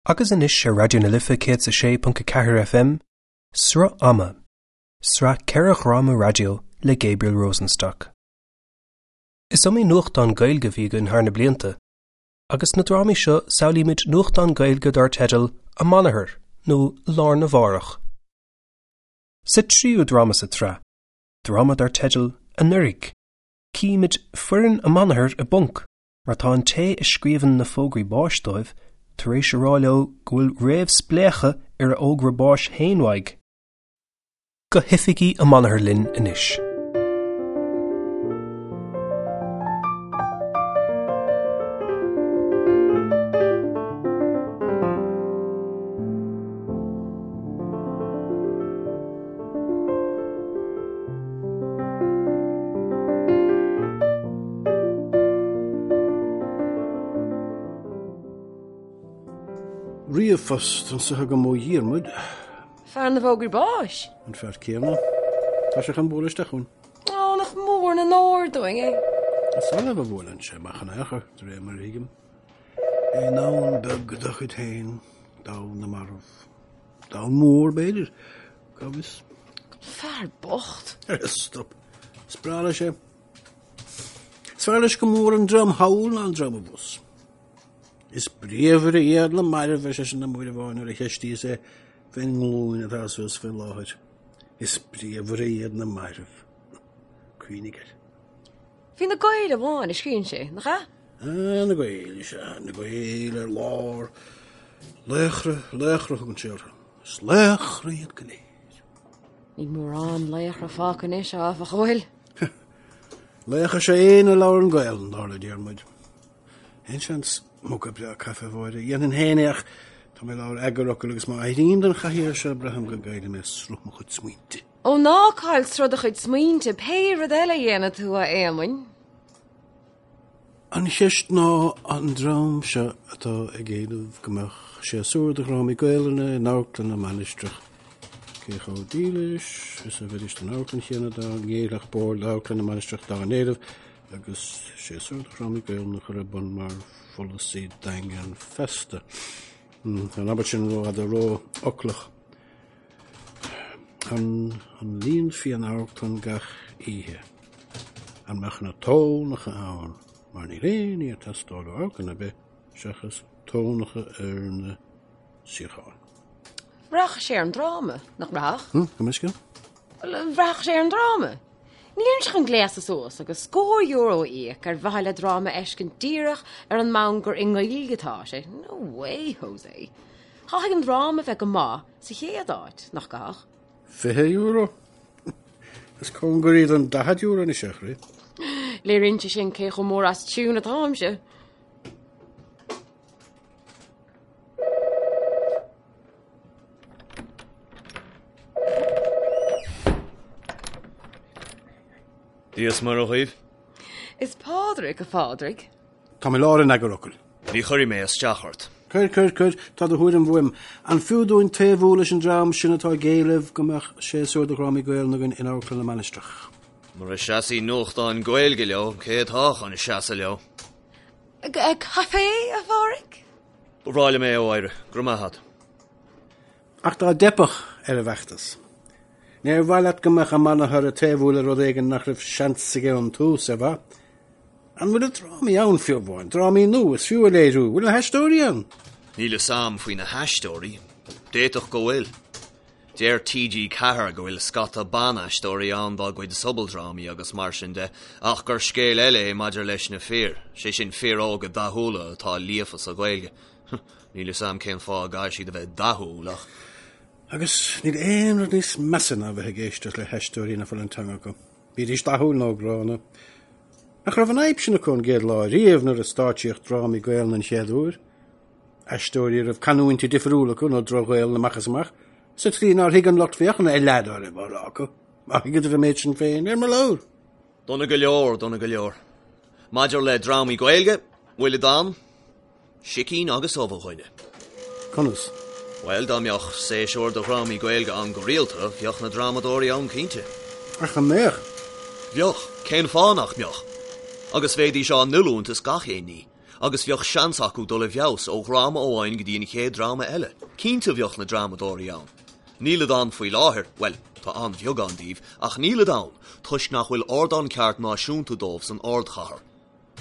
Agus anois ar Raidió na Life 106.4 FM, Sruth Ama, sraith 4 dhráma raidió le Gabriel Rosenstock. Is iomaí nuachtán Gaeilge a bhí againn thar na blianta, agus sna drámaí seo samhlaímid nuachtán Gaeilge dar teideal Amanathar nó Lá Arna Mhárach. Sa tríú dráma sa tsraith, dráma dar teideal Anuraidh, címid foireann Amanathar i bponc mar tá an té a scríobhann na fógraí báis dóibh tar éis a rá leo go bhfuil réamhspléachadh ar a fhógra báis féin uaidh. Go hoifigí Amanathar linn anois. Ríomhphost anso agam ó Dhiarmuid. Fear na bhfógraí báis? An fear céanna. Tá sé chun bualadh isteach chugainn. Ó, nach mór an onóir dúinn é. Is annamh a bhuaileann sé amach in aon chor, de réir mar a thuigim. I ndomhan beag dá chuid féin, domhan na marbh. Domhan mór, b'fhéidir. Cá bhfios? Fear bocht. Stop. Is breá leis é. Is fearr leis go mór an dream thall ná an dream abhus. Is bríomhaire iad na mairbh, ar seisean liom uair amháin nuair a cheistíos é fén nglúin atá suas fé láthair. Is bríomhaire iad na mairbh. Cuimhnigh air. Faoi na Gaeil amháin a scríobhann sé, nach ea? Ah, na Gaeil, is ea, na Gaeil ar lár. Laochra, laochra a thugann sé orthu. Is laochra iad go léir. Níl mórán laochra fágtha anois, áfach, an bhfuil? Laoch is ea éinne a labhrann Gaelainn, dar le Diarmuid. Aon seans muga breá caife a Mháire. Dhéanfainn féin é ach tá mé i lár eagarfhocail agus má éirím den chathaoir seo braithim go gcaillfidh mé sruth mo chuid smaointe. Ó ná caill sruth do chuid smaointe, pé rud eile a dhéanfaidh tú, a Éamoinn. An cheist ná an dream seo atá ag éileamh go mbeadh séasúr de dhrámaí Gaelainne in Amharclann na Mainistreach, cé chomh dílis is a bheidís don amharclann chéanna dá ngéillfeadh Bord Amharclann na Mainistreach dá n-éileamh agus séasúr de dhrámaí Gaelainne a chur ar bun mar pholasaí daingean feasta. Tá an abairt sin rófhada rófhoclach. An líonfaí an amharclann gach oíche? An mbeadh na tónacha ann? Mar níl aon ní ag teastáil ó amharclann ar bith seachas tónacha ar na suíocháin. Rachadh sé ar an dráma, nach rachadh? Hm, gabh mo leithscéal? Bhuel, rachadh sé ar an dráma. Nílimse chun gléasadh suas agus scór euro a íoc ar mhaithe le dráma a fheiscint díreach ar an mbonn gur i nGaeilge atá sé. No way, Jose. Caithfidh an dráma a bheith go maith sa chéad áit, nach gcaithfidh? €20? Is cóngaraí don €40 anois é, a chroí. Léiríonn sé sin cé chomh mór as tiún atáimse. Dia is Muire dhaoibh. Is Pádraig, a Phádraig. Táim i lár an eagarfhocail. Ní chuirfidh mé isteach ort. Cuir, cuir, cuir, tá do thuairim uaim. An fiú dúinn taobhú leis an dream sin atá ag éileamh go mbeadh séasúr de dhrámaí Gaelainne againn in Amharclann na Mainistreach? Mura seasfaidh nuachtáin Gaeilge leo, cé atá chun seasamh leo? Caife, a Phádraig? Ba bhreá liom é, a Mháire. Go raibh maith agat. Ach dá dteipfeadh ar an bhfeachtas, níor mhaith leat go mbeadh Amanathar ag taobhú le rud éigin nach raibh seans aige ón tús, ar mhaith? An bhfuil na drámaí ann fiú amháin? Drámaí nua is fiú a léiriú? Bhfuil na haisteoirí ann? Níl fhios a'm faoi na haisteoirí. D'fhéadfadh go bhfuil. Deir TG4 go bhfuil scata ban-aisteoirí ann dá gcuid sobaldrámaí agus mar sin de, ach gur scéal eile é maidir leis na fir, sé sin fir óga dathúla atá líofa sa Ghaeilge. Níl fhios a'm cén fáth a gcaithfidh siad a bheith dathúil ach. Agus níl aon rud níos measa ná a bheith ag éisteacht le haisteoirí nach bhfuil an teanga acu, bídís dathúil nó gránna. Nach raibh an fhadhb sin acu ón gcéad lá riamh nuair a stáitsíodh drámaí Gaelainne an chéad uair? Aisteoirí a raibh canúintí difriúla acu nó droch-Ghaelainn amach is amach, sa tslí nár thuig an lucht féachana a leath dá raibh á rá acu. Má thuigeadar an méid sin féin, ar mo leabhar! Dona go leor, dona go leor. Maidir le drámaí Gaeilge, bhfuil ann? Sicín agus ubh, a dhuine. Conas? Bhuel, dá mbeadh séasúr de dhrámaí Gaeilge ann go rialta, bheadh na drámadóirí ann cinnte. Ach an mbeadh? Bheadh. Cén fáth nach mbeadh? Agus bheidís á n-oiliúint is gach aon ní. agus bheadh seans acu dul i bhfeabhas ó dhráma amháin go dtí an chéad dráma eile. Cinnte bheadh na drámadóirí ann. Nílid ann faoi láthair, bhuel, tá an-bheagán díobh, ach nílid ann toisc nach bhfuil ardán ceart náisiúnta dóibh san ardchathair.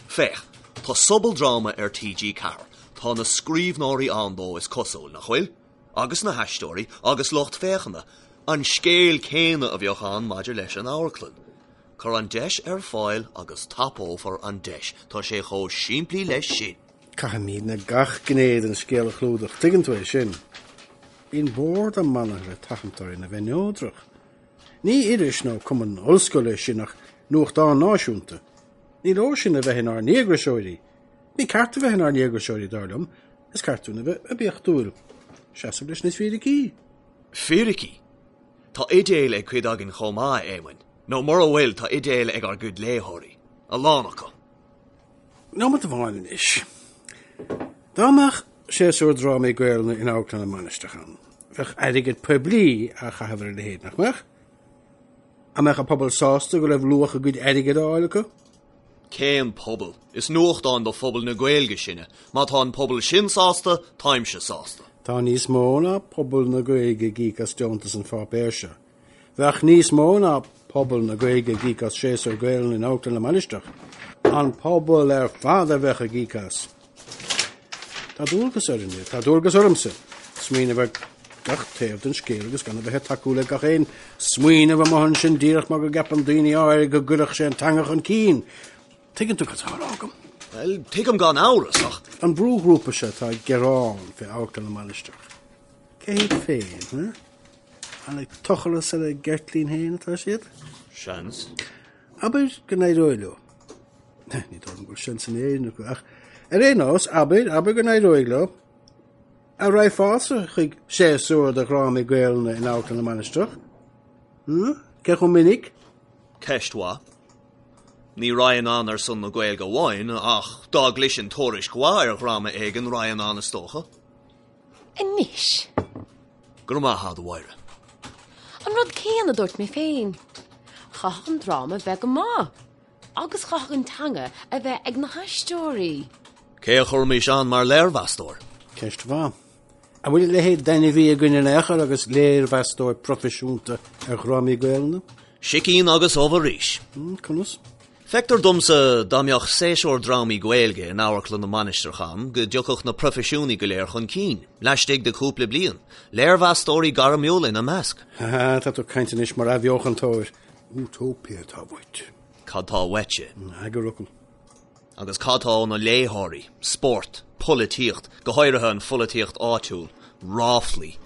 Féach, tá sobaldráma ar TG4, tá na scríbhneoirí ann dó is cosúil, nach bhfuil? Agus na haisteoirí, agus lucht féachana. An scéal céanna a bheadh ann maidir leis an amharclann. Cuir an deis ar fáil agus tapófar an deis. Tá sé chomh simplí leis sin. Caithfimidne gach gné den scéal a chlúdach, tuigeann tú é sin. Bíonn bord amanna le tathant orainn a bheith neodrach. Ní iris nó cumann ollscoile sinn ach nuachtán náisiúnta. Ní leor sinn a bheith inár ndíograiseoirí. Ní ceart a bheith inár ndíograiseoirí, dar liom, is ceart dúinn a bheith oibiachtúil. Seasamh leis na fíricí. Fíricí? Tá idéil ag cuid againn chomh maith, a Éamoinn. Nó mura bhfuil, tá idéil ag ár gcuid léitheoirí. A lán acu. Nóiméad amháin anois. Dá mbeadh séasúr drámaí Gaelainne in Amharclann na Mainistreach ann, bheadh airgead poiblí á chaitheamh ar a leithéid, nach mbeadh? An mbeadh an pobal sásta go raibh luach a gcuid airgid á fháil acu? Cén pobal? Is nuachtán do phobal na Gaeilge sinne. Má tá an pobal sin sásta, táimse sásta. Tá níos mó ná pobal na Gaeilge ag íoc as deontas an pháipéir seo. Bheadh níos mó ná pobal na Gaeilge ag íoc as séasúr Gaelainne in Amharclann na Mainistreach. An pobal ar fad a bheadh ag íoc as. Tá dualgas orainne, tá dualgas ormsa, smaoineamh ar gach taobh den scéal agus gan a bheith ag tacú le gach aon smaoineamh amuigh ansin díreach mar go gceapann daoine áirithe go gcuirfeadh sé an teanga chun cinn. Tuigeann tú cad tá á rá agam? Bhuel, tuigim gan amhras, ach. An brúghrúpa seo atá ag gearán fé Amharclann na Mainistreach, cé hiad féin, huh? An ag tochras ar a gceirtlín féin atá siad? Seans. Abair go n-éireoidh leo. Ní dóigh liom go bhfuil seans in Éirinn acu, ach ar aon nós, abair, abair go n-éireoidh leo. An raghfása chuig séasúr de dhrámaí Gaelainne in Amharclann na Mainistreach? Hm? Cé chomh minic? Ceist mhaith. Ní raghainn ann ar son na Gaeilge amháin, ach dá gcloisfinn tuairisc mhaith ar dhráma éigin, raghainn ann is dócha. Anois. Go raibh maith a'd, a Mháire. An rud céanna a dúirt mé féin. Chaithfeadh an dráma bheith go maith. Agus chaithfeadh an teanga a bheith ag na haisteoirí. Cé a chuirfimis ann mar léirmheastóir? Ceist mhaith. An bhfuil a leithéid d'ainmhí againn in aon chor agus léirmheastóir proifisiúnta ar dhrámaí Gaelainne? Sicín agus ubh arís. Conas? Feictear domsa dá mbeadh séasúr drámaí Gaeilge in Amharclann na Mainistreach ann go dtiocfadh na proifisiúnaigh go léir chun cinn, laistigh de chúpla bliain, léirmheastóirí gairmiúla ina measc. Ha, tá tú ag caint anois mar athbheochantóir. Útóipia atá uait. Cad tá uaitse? Eagarfhocal. Agus cad tá ó na léitheoirí? Spórt, polaitíocht, go háirithe an pholaitíocht áitiúil, ráflaí.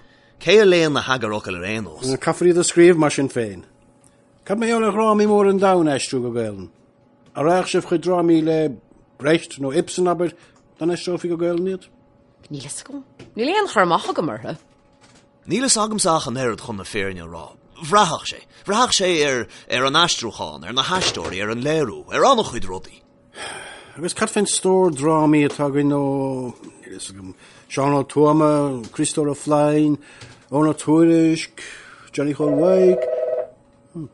Cé a léann na heagarfhocail ar aon nós? Caithfear iad a scríobh mar sin féin. Cad mar gheall ar dhrámaí móra an domhain a aistriú go Gaelainn? An raghadh sibh chuig drámaí le Brecht nó Ibsen, abair, dá n-aistreofaí go Gaelainn iad? Níl fhios agam. Níl aon chur amach agam orthu. Níl fhios agamsa ach an oiread chun na fírinne a rá. Bhraithfeadh sé. Bhraithfeadh sé ar, ar an aistriúchán, ar na haisteoirí, ar an léiriú, ar an-chuid rudaí. Agus cad fén stór drámaí atá againn ó, níl fhios agam, Seán Ó Tuama, Criostóir Ó Floinn, Eoghan Ó Tuairisg, Johnny Chóil Mhaidhc.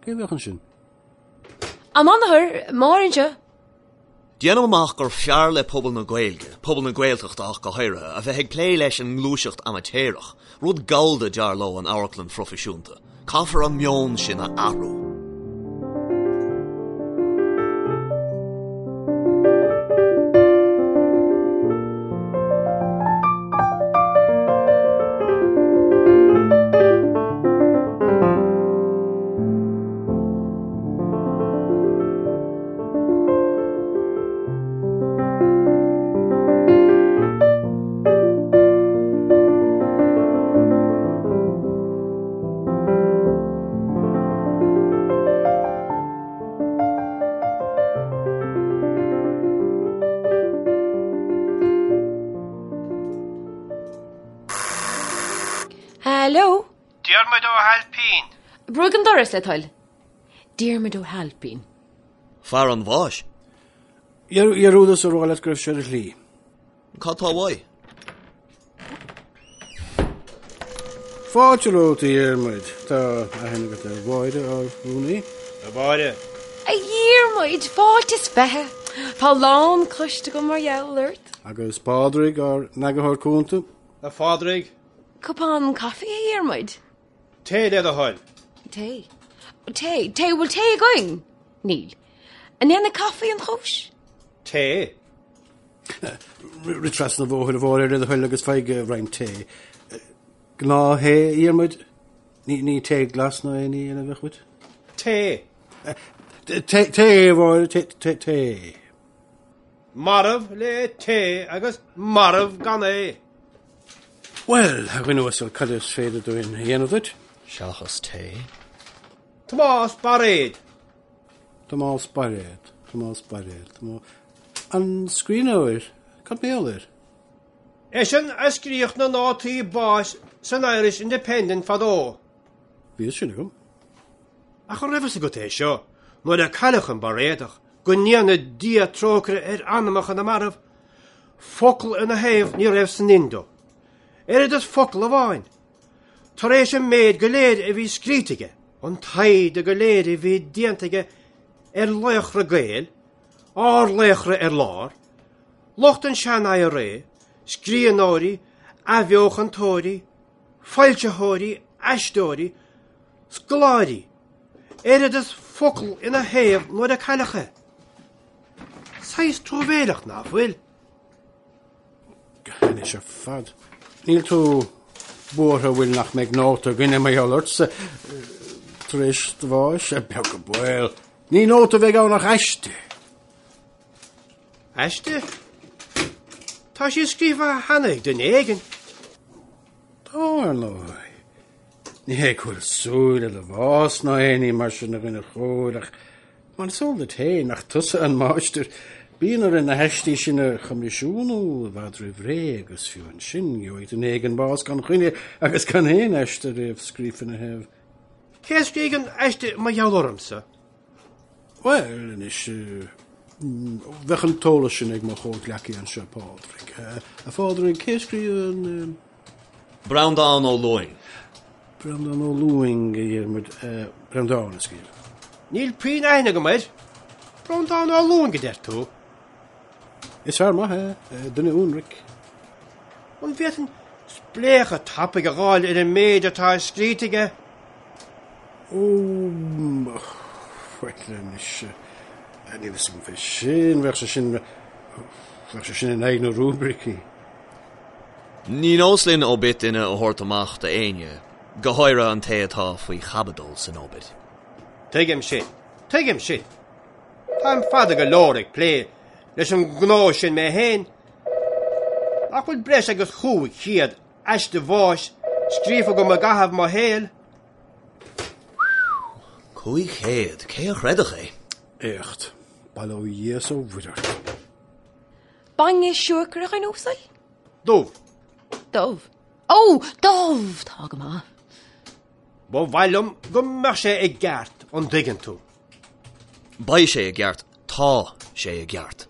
Cé a bheadh ansin? A mháthair, Máire anseo. Déanaim amach gur fearr le pobal na Gaeilge, pobal na Gaeltachta ach go háirithe, a bheith ag plé leis an ngluaiseacht amaitéarach. Rud gallda dar leo an amharclann phroifisiúnta. Caithfear an meon sin a athrú. Hello? Diarmuid Ó hAilpín. Brúigh an doras le do thoil. Diarmuid Ó hAilpín. Fear an bháis. Dhearúdas a rá leat go raibh sé ar a shlí. Cad tá uaidh? Fáilte romhat, a Dhiarmuid. Tá aithne agat ar Mháire, ár rúnaí. A Mháire. A Dhiarmuid, fáilte is fiche. Tá a lán cloiste agam mar gheall ort. Agus Pádraig, ár n-eagarthóir cúnta. A Phádraig. Cupán caife, a Dhiarmuid? Tae le do thoil. Tae. Tae. Tae. Bhfuil tae againn? Níl. An ndéanfaidh caife an chúis? Tae. Rith trasna an bhóthair a Mháire le do thoil agus faigh roinnt tae. Gnáth-thae, a Dhiarmuid? Ní tae glas ná aon ní eile a bheadh uait? Tae. Tae, tae, a Mháire, tae, tae, tae. Marbh le tae agus marbh gan é. Bhuel, a dhuine uasail, cad is féidir dúinn a dhéanamh duit? Seachas tae. Tomás Bairéad. Tomás Bairéad, Tomás Bairéad, Tomás... An scríbhneoir? Cad mar gheall air? Eisean a scríodh na nótaí báis san Irish Independent fadó. Bhí fhios sin agam. Ach an raibh fhios agat é seo, nuair a cailleadh an Bairéadach, go ndéana Dia trócaire ar anamacha na marbh, focal ina thaobh ní raibh san Indo. Oiread is focal amháin. Tar éis an méid go léir a bhí scríte aige, an taighde go léir a bhí déanta aige ar laochra Gael, ár laochra ar lár, Lucht an sean-IRA, scríbhneoirí, athbheochantóirí, foilsitheoirí, aisteoirí, scoláirí, oiread is focal ina thaobh nuair a cailleadh é. Saghas truamhéileach, ná fuil? Anois ar fad. Níl tú buartha bhfuil nach mbeidh nóta againne mar gheall ortsa tar éis do bháis? Beag an baol. Ní nóta a bheidh ann ach aiste. Aiste? Tá sí scríofa cheana ag duine éigin. Tá, ar ndóigh. Ní hé go bhfuil súil le do bhás ná aon ní mar sin a dhuine chóir ach mar is eol duit féin nach tusa an máistir, bíonn orainn na haistí sin a choimisiúnú i bhfad roimh ré agus fiú ansin gheobhaidh duine éigin bás gan choinne agus gan aon aiste réamhscríofa ina thaobh. Cé a scrígh an aiste mar gheall ormsa? Bhuel, anois, bheadh an t-eolas sin ag mo chomhghleacaí anseo, Pádraig. A Phádraig, cé a scríobh an. Breandán Ó Lúing. Breandán Ó Lúing, a Dhiarmuid. Breandán a scríobh. Níl puinn aithne agam air. Breandán Ó Lúing, a deir tú? Is fear maith é, duine ionraic. An bhféadfainn spléachadh tapaidh a dh'fháil ar an méid atá scríte aige? Ó, bhuel anois, níl fhios agam fé sin, bheadh sé sin, bheadh sé sin in aghaidh na rúibricí. Ní nós linn obit duine a thabhairt amach d'éinne, go háirithe an té atá faoi chaibidil san obit. Tuigim sin, tuigim sin. Táim fada go leor ag plé leis an ngnó sin mé féin. Nach bhfuil breis agus 500 aiste bháis scríofa agam i gcaitheamh mo shaoil? 500? Cé a chreidfeadh é? Éacht. Bail ó Dhia 's ó Mhuire ort. Bainne siúcra, a dhuine uasail? Dubh. Dubh. Ó, dubh! Tá go maith. Ba mhaith liom go mbeadh sé i gceart, an dtuigeann tú. Beidh sé i gceart. Tá sé i gceart.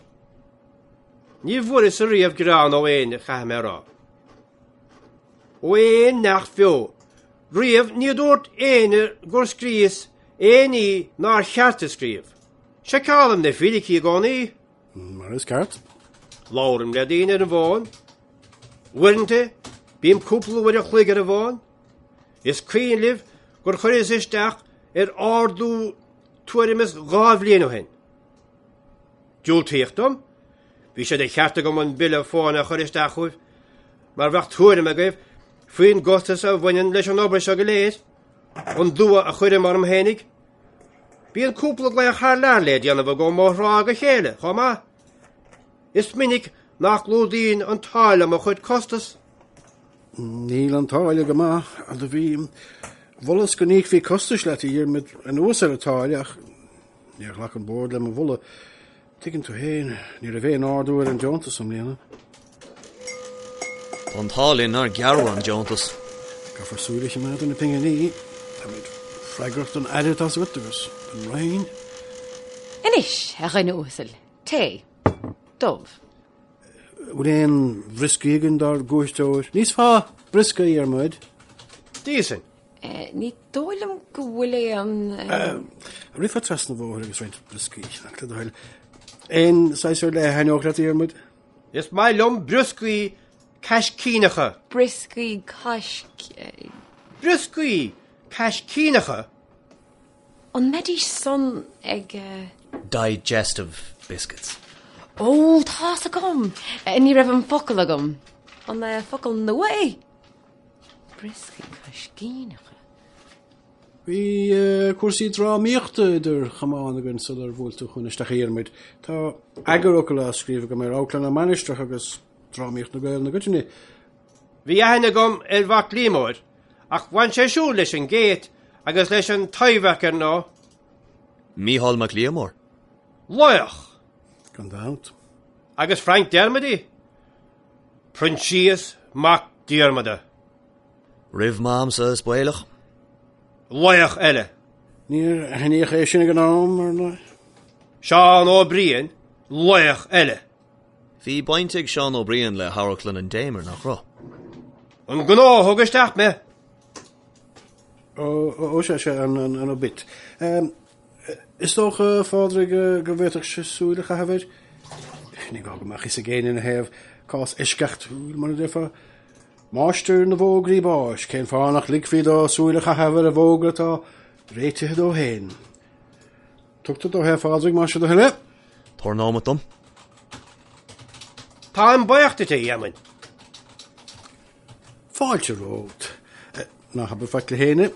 Ní bhfuaireas-sa riamh gearán ó éinne, caithfidh mé a rá. Ó aon neach bheo. Riamh ní dúirt éinne gur scríos aon ní nár cheart a scríobh. Seiceálaim na fíricí i gcónaí. Mar is ceart. Labhraím le daoine ar an bhfón. Uaireanta, bím cúpla uair a chloig ar an bhfón. Is cuimhin libh gur chuireas isteach ar ardú tuairim is 2 bhliain ó shin. Diúltaíodh dom. Bhí sé de cheart agam an bille fóin a chur isteach chugaibh, mar bheadh tuairim agaibh faoin gcostas a bhaineann leis an obair seo go léir, an dua a chuirim orm fhéinig. Bíonn cúpla glaoch thar lear le déanamh agam ó thráth go chéile, chomh maith. Is minic nach gclúdaíonn an táille mo chuid costas. Níl an táille go maith, do bhí. Mholas go n-íocfaí costais leat, a Dhiarmaid, anuas ar an táille ach níor ghlac an Bord le mo mholadh. Tuigeann tú féin, ní raibh aon ardú ar an deontas i mbliana. Tá an t-ádh linn nár gearradh an deontas. Caithfear súil a choimeád ar na pinginí. Táimid freagrach don Aire, tá's agat, agus don Roinn. Anois, a dhuine uasail, tae. Dubh. Bhfuil aon bhrioscaí againn dár gcuairteoir? Níos fearr briosca, a Dhiarmuid. D'íosfainn. Ní dóigh liom go bhfuil aon. Rithfeá trasna an bhóthair agus roinnt brioscaí a cheannach le do thoil. Aon saghas ar leith a thaitneodh leat, a Dhiarmuid? Is maith liom brioscaí caiscíneacha. Brioscaí caisc. Brioscaí caiscíneacha? An mbeidís san ag. Digestive biscuits. Ó, tá's agam! Ní raibh an focal agam. An focal nua é? Brioscaí caiscíneacha. Bhí cúrsaí drámaíochta idir chamáin againn sular bhuail tú chugainn isteach a Dhiarmuid. Tá eagarfhocal á scríobh agam ar Amharclann na Mainistreach agus drámaíocht na Gaelainne i gcoitinne. Bhí aithne agam ar Mhac Liammóir, ach bhain sé siúd leis an gCéit agus leis an Taibhdhearc, ar ndóigh. Mícheál Mac Liammóir. Laoch! Gan dabht. Agus Frank Dermody? Proinsias Mac Diarmada. Roimh m'amsa, is baolach. Laoch eile. Níor aithníodh é sin ag an am, ar ndóigh. Seán Ó Briain, laoch eile. Bhí baint ag Seán Ó Briain le hAmharclann an Damer, nach raibh? An gnó a thug isteach mé. Ó, ó, sea, sea, an, an, an obit. Is dócha, a Phádraig, go bhféadfadh sé súil a chaitheamh air. Ní gá go mbeadh fhios ag éinne ina thaobh, cás eisceachtúil, mar a déarfá. Máistir na bhfógraí báis, cén fáth nach ligfí dó súil a chaitheamh ar an bhfógra atá réitithe dó féin? Tugtar dó é, a Phádraig, más é do thoil é. Tabhair nóimeat dom. Táim buíoch duit, a Éamoinn. Fáilte romhat. Ná habair faic le héinne.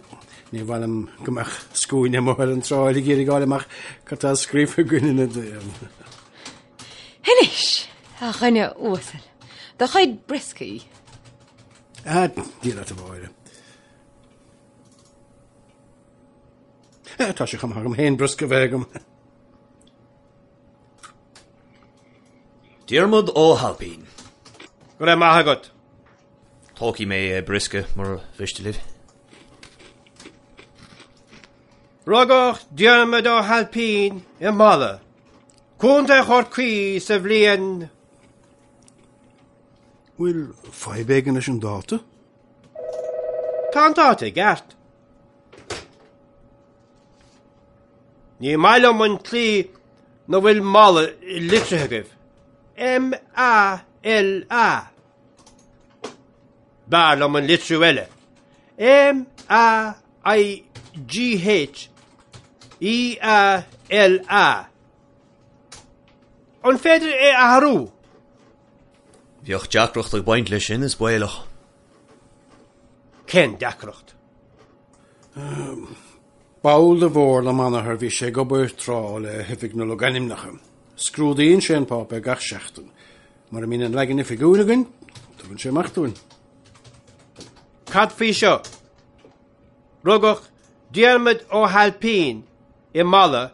Ní mhaith liom go mbeadh scuaine amuigh ar an tsráid ag iarraidh fháil amach cad tá scríofa againn ina dtaobh. Anois, a dhuine uasail, do chuid brioscaí. Ah, Dia leat a Mháire. Tá sé chomh maith agam féin briosca a bheith agam. Diarmuid Ó hAilpín. Go raibh maith agat. Tógfaidh mé briosca mura mhiste libh. Rugadh Diarmuid Ó hAilpín i Mala, Contae Chorcaí sa bhliain. Bhfuil fadhb éigin leis an dáta? Tá an dáta i gceart. Ní maith liom an tslí 'na bhfuil Mala litrithe agaibh. M-A-L-A. B'fhearr liom an litriú eile. M-A-I-G-H-E-A-L-A. An féidir é a athrú? Bheadh deacracht ag baint leis sin, is baolach. Cén deacracht? Ball de Bhord na Manachar bhí sé ag obair tráth le hOifig na Logainmneacha. Scrúdaíonn sé an páipéar gach seachtain. Mura mbíonn an leagan oifigiúil againn, tugann sé amach dúinn. Cad faoi seo? Rugadh Diarmuid Ó hAilpín i Mala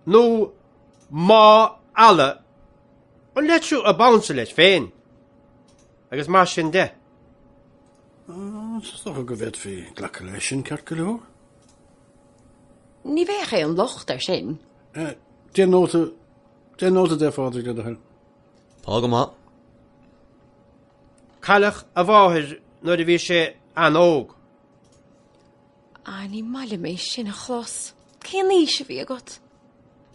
nó Má Alla, an litriú ab ansa leis féin, agus mar sin de. Is dócha go bhféadfaí glacadh leis sin ceart go leor. Ní bheadh aon locht air sin. Déan nóta, déan nóta de, a Phádraig, le do thoil. Tá go maith. Cailleadh a mháthair nuair a bhí sé an-óg. Ah, ní maith liom é sin a chlos. Cén aois a bhí agat?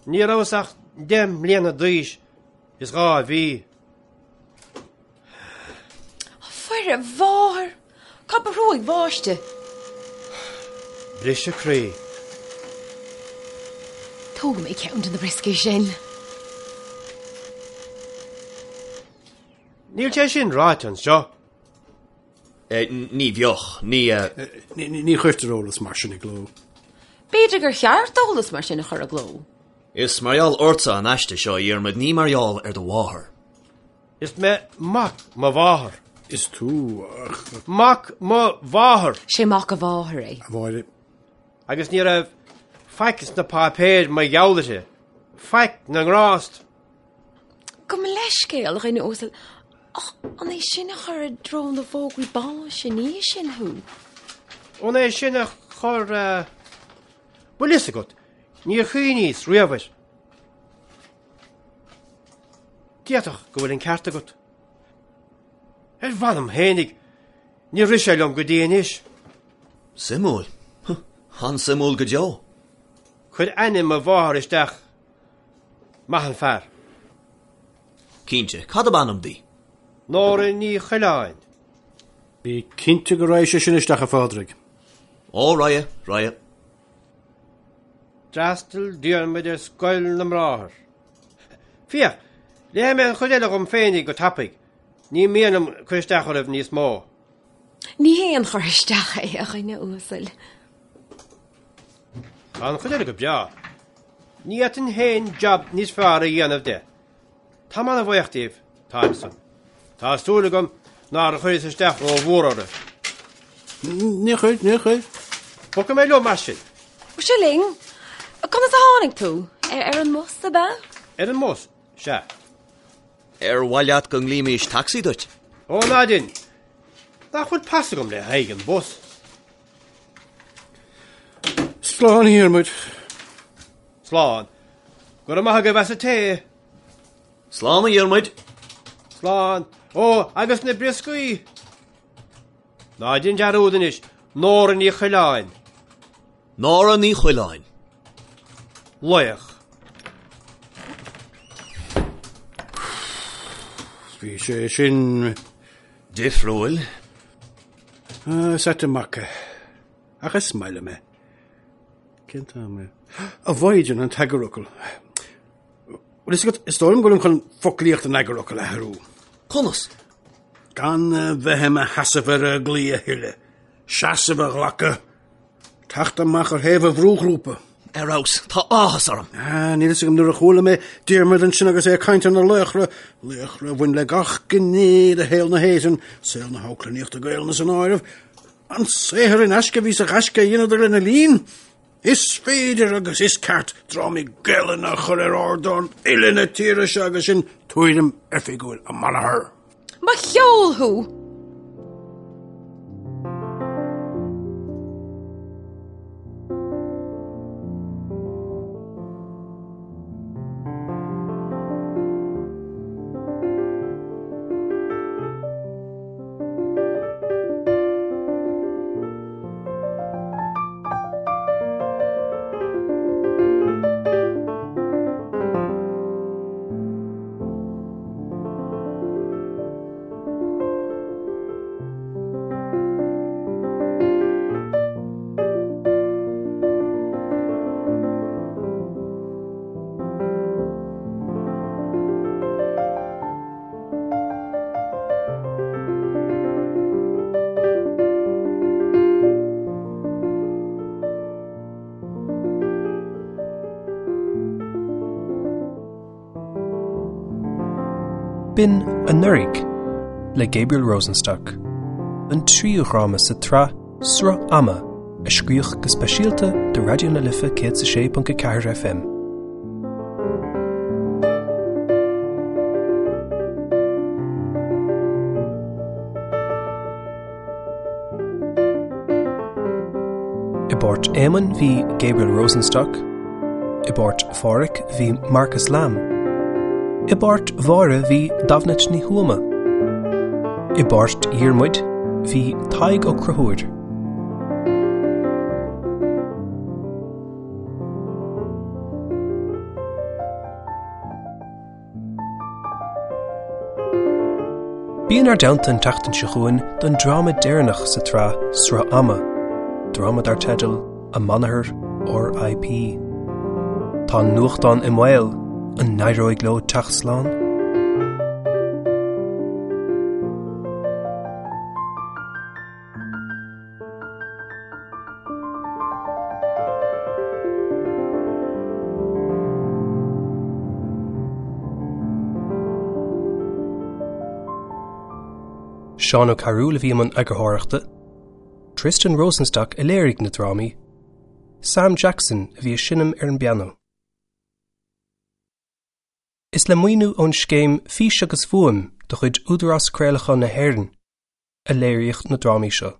Ní rabhas ach 10 mbliana d'aois is 2 mhí. A Mhuire Mháthair! Cad ba thrúig bháiste? Briseadh croí. Tógfaidh mé ceann de na brioscaí sin. Níl sé sin ráite anseo. Ní bheadh. Ní. Ní chuirtear eolas mar sin i gcló. B'fhéidir gur cheart eolas mar sin a chur i gcló. Is mar gheall ortsa an aiste seo, a Dhiarmaid, ní mar gheall ar do mháthair. Is mé mac mo mháthar. Is tú, ach. Mac mo mháthar. Sé mac a mháthar é. A Mháire. Agus ní raibh faic sna páipéir mar gheall uirthi. Faic na ngrást. Gabh mo leithscéal, a dhuine uasail, ach an é sin a chuir i dtreo na bhfógraí báis ina dhiaidh sin thú? An é sin a chuir, bhfuil fhios agat, níor chuimhníos riamh air. D'fhéadfadh go bhfuil an ceart agat. Ar mh'anam fhéinig, níor rith sé liom go dtí anois. Suimiúil. An-suimiúil go deo. Cuir ainm mo mháthar isteach. Maith an fear. Cinnte, cad ab ainm di? Nóra Ní Choileáin. Bí cinnte go raghaidh sé sin isteach, a Phádraig. Ó, raghaidh, raghaidh. D'fhreastail Diarmuid ar Scoil na mBráthar. Féach, léifidh mé an chuid eile dhom féinig go tapaidh. Ní mian liom cur isteach oraibh níos mó. Ní haon chur isteach é, a dhuine uasail. Tá an chuid eile go breá. Ní fhéadfainn féin jab níos fearr a dhéanamh de. Táim an-bhuíoch díbh, táim san. Tá súil agam nár chuireas isteach rómhór oraibh. Níor chuir, níor chuir. Bogfaidh mé liom mar sin. Ó, seo linn. Conas a tháinig tú? Ar an mbus, ab ea? Ar an mbus, sea. Ar mhaith leat go nglaoimís tacsaí duit? Ó, ná dein. Nach bhfuil pas agam le haghaidh an bhus? Slán, a Dhiarmuid. Slán. Go raibh maith agaibh as an tae. Slán, a Dhiarmuid. Slán. Ó, agus na brioscaí! Ná dein dearúd anois, Nóra Ní Choileáin. Nóra Ní Choileáin. Laoch. Bhí sé sin. Difriúil. Is ait an mac é. Ach is maith liom é. Cén t-am é? A Mhaighdean, an t-eagarfhocal. Bhfuil fhios agat, is dóigh liom go bhfuilim chun foclaíocht an eagarfhocail a athrú. Conas? Gan a bheith i mo sheasamh ar an gclaí a thuilleadh. Seasamh a ghlacadh. Teacht amach ar thaobh an bhrúghrúpa. Ar fheabhas, tá áthas orm. Ah, níl fhios agam nuair a chuala mé Diarmuid ansin agus é ag caint ar na laochra, laochra a bhain le gach gné de shaol na hÉireann, saol na hamharclannaíochta Gaelainne san áireamh. An saothar in aisce a bhí sa ghaisce a dheineadar lena linn. Is féidir agus is ceart drámaí Gaelainne a chur ar ardáin uile na tíre seo agus sin tuairim oifigiúil an manathar. Mo cheol thú! B'in Anuraidh le Gabriel Rosenstock, an tríú dhráma sa tsraith Sruth Ama a scríodh go speisialta do Raidió na Life 106.4 FM. I bpáirt Éamoinn bhí Gabriel Rosenstock, i bpáirt Phádhraic bhí Marcus Lamb, i bpáirt Mháire bhí Damhnait Ní Thuama, i bpáirt Dhiarmuid bhí Tadhg Ó Conchúir. Bí inár dteannta an tseachtain seo chugainn don dráma deireanach sa tsraith Sruth Ama, dráma dar teideal An Manathar R.I.P. Tá an nuachtán i mbaol, an n-éireoidh leo teacht slán? Seán Ó Cearúil a bhí i mbun eagarthóireachta, Tristan Rosenstock a léirigh na drámaí, Sam Jackson a bhí ag seinm ar an bpianó. Is le maoiniú ón scéim Fís agus Fuaim de chuid Údarás Craolacháin na hÉireann a léiríodh na drámaí seo.